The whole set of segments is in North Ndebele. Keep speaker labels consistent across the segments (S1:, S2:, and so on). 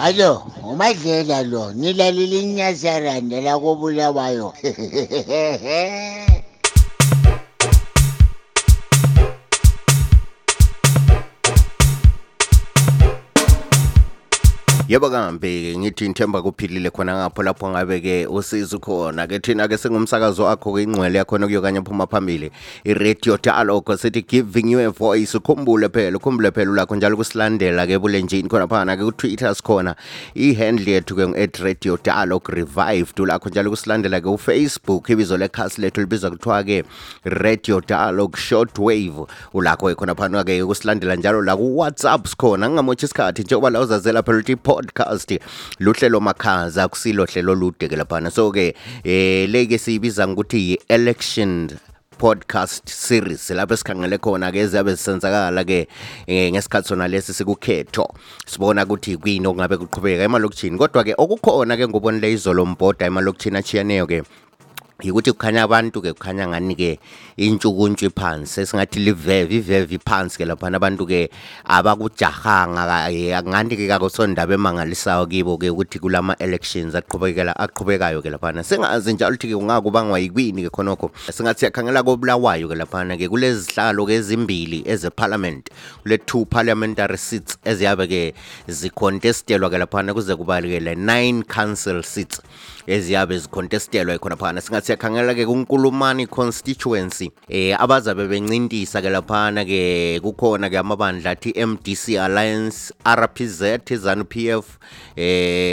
S1: Alo, uMadlela lo, nilalile inyasaranda la koBulawayo.
S2: Yebo kambe ngithi ngithemba kuphilile khona ngapho lapho ngabe ke usizo khona ke thina ke singumsakazo wakho ke ingcwele yakho nokuyokanye phuma phambili iRadio Dialogue sithi giving you a voice ukhumbule phela lakho njalo kusilandela ke bulenjini khona phana ke ku Twitter sikhona ihandle yethu ke @Radio Dialogue Revived lakho njalo kusilandela ke uFacebook ibizo lekhasi lethu libizwa kuthiwa ke Radio Dialogue Shortwave ulakho khona phana ke kusilandela njalo la ku WhatsApp sikhona ngingamothi isikhathi njengoba la uzazela phela podcast luhlelo makhaza kusilo hlelo lude ke laphana so ke leke siyibiza ukuthi election podcast series lapho sikhangele khona ke ezabe sisenzakala ke ngesikhathi sona lesi sikukhetho sibona ukuthi kuyini okungabe kuqhubeka emalokishini kodwa ke okukhona ke ngobonile izolo mbhoda emalokishini achiyaneyo ke ukuthi kukhanya abantu ke kukhanya ngani ke intshukuntshu phansi esingathi livevi phansi ke lapha abantu ke abakujahanga ngani ke akusondaba emangalisayo kibo ke ukuthi kulama elections aqhubekayo ke lapha sengazi njalo ukuthi kungakubangwa yikwini ke khonokho singathi yakhangela koBulawayo ke lapha ke kulezi zihlalo ke ezimbili ezeparliament kule 2 parliamentary seats eziyabe ke zicontestelwa ke lapha kuze kubalekele 9 council seats eziyabe zicontestelwa khona phana singathi yakhangela ke kuNkulumani constituency abazabe bencintisa ke laphana ke kukhona ke amabandla athi MDC Alliance RPZ ZANU-PF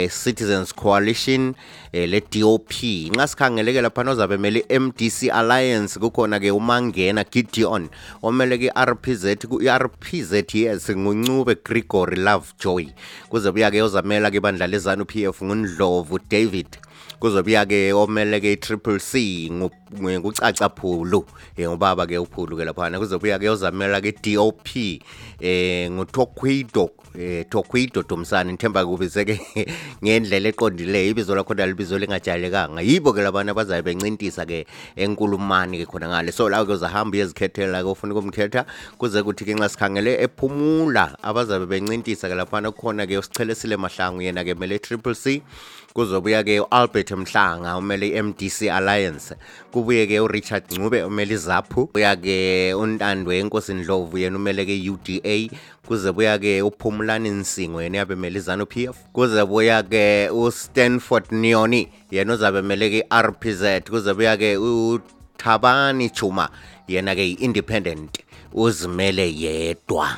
S2: Citizens Coalition le DOP ngasikhangele ke laphana ozabe mele MDC Alliance kukhona ke uMangena Gideon omele ke RPZ yes nguNcube Gregory Lovejoy kuzobuya ke ozamela ke bandla leZANU-PF nguNdlovu David kuzobuya ke omele ke Triple C ngucaca Phulu ngubaba ke uPhulu ke laphana kuzobuya ke ozamela ke DOP nguTokwido Domsana nithemba kubize ke ngendlela eqondileyo ibizo lakho libizo lingajayelekanga yibo ke labana bazabe bencintisa ke enkulumani ke khona ngale so la ke uzahamba yezikhethela ke ufuna ukumkhetha kuze kuthi ke nxa sikhangele ephumula abazabe bencintisa ke laphana kukhona ke uSichelesile Mahlangu yena ke mele Triple C kuzobuya ke uAlbert Mhlanga umele MDC Alliance kubuye ke uRichard Ncube umele iZAPHU buya ke uNtandwe Enkosi Ndlovu yena umele ke UDA kuze buya ke uPhumulani Nsingo yena yabe mele ZANU-PF kuze buya ke uStanford Nyoni yena uzabe mele ke RPZ kuze buya ke uThabani Chuma yena ke independent uzimele yedwa.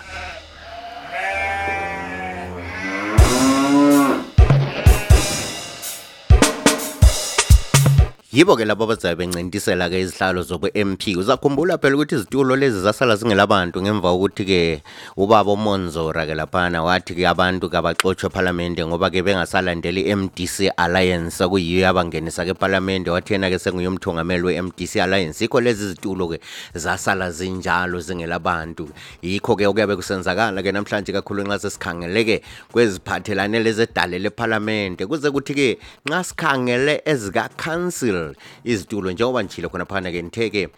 S2: Yibo ke labo bazabe bencintisela ke izihlalo zobu MP uzakhumbula phela ukuthi izitulo lezi zasala zingelabantu ngemva ukuthi ke ubaba uMonzora ke laphana wathi ke abantu kabaxoxwe eParliament ngoba ke bengasalandeli MDC Alliance kuyiyo abangenisa ke eParliament wathi yena ke senguyumthungameli weMDC Alliance ikho lezi izitulo ke zasala zinjalo zingelabantu yikho ke okuyabe kusenzakala ke namhlanje kakhulu nxa sesikhangele ke kweziphathelane lezedale leParliament kuze kuthi ke nxa sikhangele ezika council izitulo njengoba njilo khona phana ke nitheke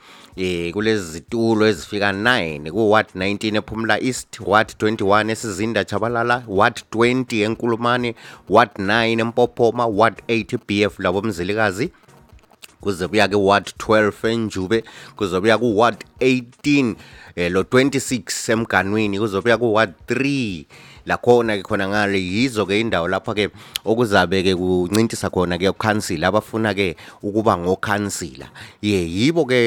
S2: kulezi zitulo ezifika 9 ku Ward 19 ePhumula East Ward 21 esizinda Chabalala Ward 20 eNkulumani Ward 9 eMpophoma Ward 8 BF labo Mzilikazi kuze buya ke Ward 12 eNjube kuze buya ku Ward 18 lo 26 eMganwini kuze buya ku Ward 3 la khona ke khona ngale yizo ke indawo lapha ke okuzabe ke kuncintisa khona ke ukhansila abafuna ke ukuba ngokhansila yibo ke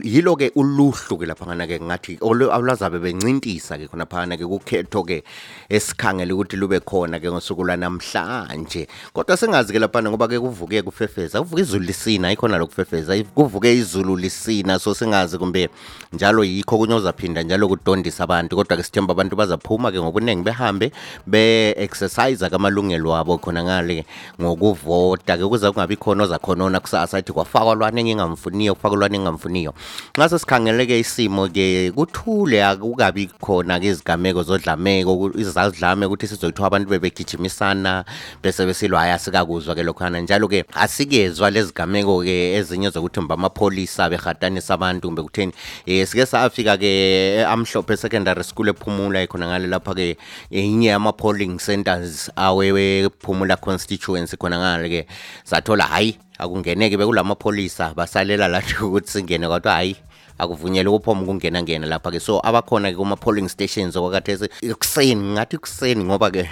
S2: yilo ke uluhlu ke lapha ngana ke ngathi olazabe bencintisa ke khona phana ke kukhetho ke esikhangele ukuthi lube khona ke ngosuku lwanamhlanje kodwa sengazi ke lapha ngoba ke kuvuke kufefeza kuvuka izulu lisina ikhona lokufefeza kuvuke izulu lisina so sengazi kumbe njalo yikho kunyozaphinda njalo kudondisa abantu kodwa ke sithemba abantu bazaphuma ke ngobunengi behambe be-exercise kamalungelo wabo khona ngale ngokuvota ke kuze kungabi khona ozakhonona kusasa athi kwafakwa lwane engingamfuniyo kufakwa lwane engingamfuniyo nxa sesikhangele ke isimo ke kuthule akukabi khona ke izigameko zodlameko izazidlame ukuthi sizoyithiwa abantu bebegijimisana bese besilwa ayasikakuzwa ke lokhana njalo ke asikezwa lezigameko ke ezinye zokuthi mba amapolisa behatanisa abantu kumbe kutheni sike safika ke Amhlophe Secondary School ePhumula khona ngale lapha ke inye ama-polling centers awewe Phumula constituency khona ngale ke sathola hayi akungeneke bekulama-pholisa basalela lathi ukuthi singene kodwa hayi akuvunyelwe ukuphoma ukungena lapha ke so abakhona ke kuma-polling stations okwakhathesi ekuseni ngathi ekuseni ngoba ke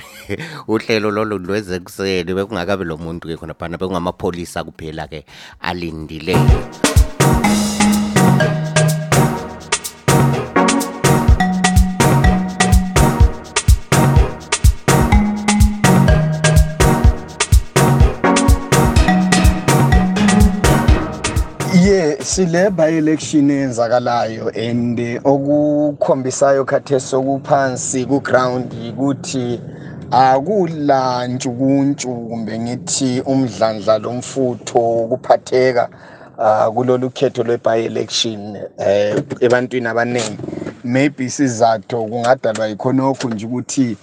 S2: uhlelo lolo lweze ekuseni bekungakabi lo muntu ke khona phana bekungamapholisa kuphela ke alindileyo.
S3: Sile by-election eyenzakalayo and okukhombisayo khathesi okuphansi ku-ground ukuthi akula ntshukuntshu kumbe ngithi umdlandla lomfutho ukuphatheka kulolu khetho lwe-by-election ebantwini abaningi. Maybe isizathu kungadalwa yikhonokho nje ukuthi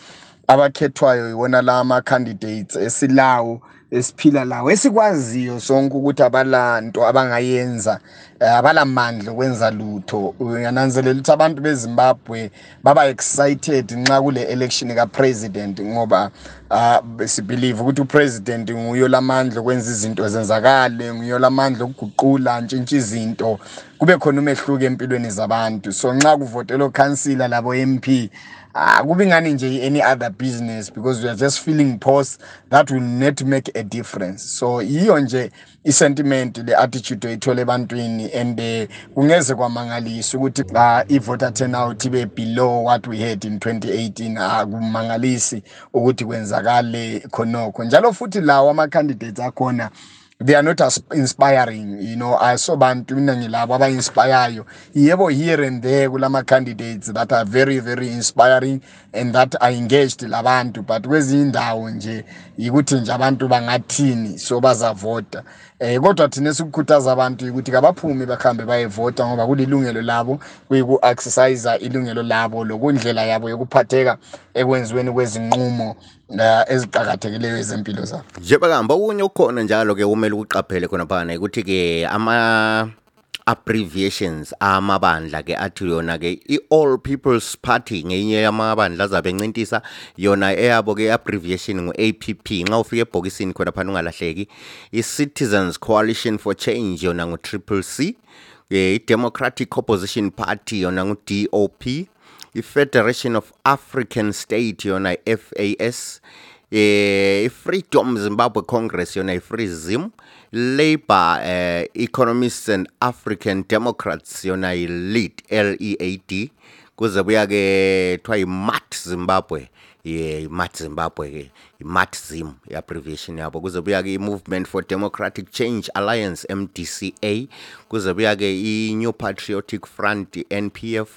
S3: abakhethwayo yiwona la ama-candidates esilawo esiphila lawo esikwaziyo sonke ukuthi abalanto abangayenza abalamandla okwenza lutho. Uyananzelela ukuthi abantu beZimbabwe baba excited nxa kule election ka-president ngoba sibelieve ukuthi upresident nguyo lamandla okwenza izinto zenzakale, nguyo lamandla okuguqula ntshintsha izinto kube khona umehluko empilweni zabantu. So nxa kuvotela councillor labo MP kubi ngani nje any other business because we are just feeling pause that will not make a difference. So iyo nje i-sentiment le-attitude oyithole ebantwini and kungeze kwamangalisa ukuthi i-voter turnout ibe below what we had in 2018. Akumangalisi ukuthi kwenzakale khonokho njalo futhi lawo ama-candidates akhona they are not as inspiring, you know. I saw bantu mina ngilabo aba-inspireyo yebo here and there kulama candidates that are very very inspiring and that are engaged labantu, but kwezinye indawo nje yikuthi nje abantu bangathini so bazavota. Kodwa thina sikukhuthaza abantu ukuthi kabaphume bakhambe bayevota ngoba kulilungelo labo kuyiku-exercise ilungelo labo lokundlela yabo yokuphatheka ekwenziweni kwezinqumo eziqhakathekileyo ezempilo zabo.
S2: Njengoba kuhamba okunye ukhona njalo ke kumele ukuqaphele khona phana ukuthi ke ama abbreviations amabandla ke athi yona ke i-All People's Party ngenye yamabandla azabe encintisa yona eyabo ke abbreviation ngu-APP. Nxa ufika ebhokisini khona phana ungalahleki. I-Citizens Coalition for Change yona ngu-CCC, i-Democratic Opposition Party yona ngu-DOP, i-Federation of African State yona i-FAS, i-Freedom Zimbabwe Congress yona i-FREEZIM, Labour Economists and African Democrats yona i-LEAD, LEAD, kuze buya ke thwa i-MAT Zimbabwe, i-MAT Zimbabwe ke i-MATZIM i-abbreviation yabo. Kuze buya ke i-Movement for Democratic Change Alliance, MDCA, kuze buya ke i-New Patriotic Front, NPF,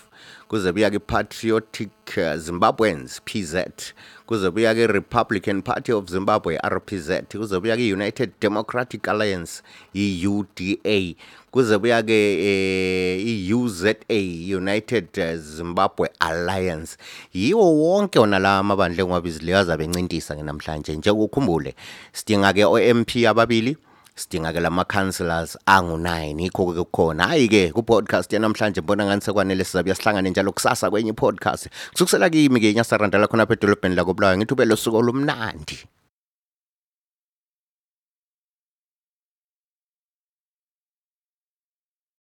S2: kuze buya ke Patriotic Zimbabweans, PZ, kuze buya ke Republican Party of Zimbabwe, RPZ, kuze buya ke United Democratic Alliance, UDA, kuze buya ke UZA, United Zimbabwe Alliance. Yiwo wonke ona la amabandla engwabizile azabe encintisa ke namhlanje. Nje ukukhumbule sidinga ke o-MP ababili, sidinga ke lama councillors angu-9. Ikho ke kukhona hayi ke ku podcast yanamhlanje mbona ngani sekwanele sizabe sihlangane njalo kusasa kwenye podcast kusukisela kimi ke Nyasarandala khona phedolobheni la koBulawayo. Ngithu belo suku olumnandi.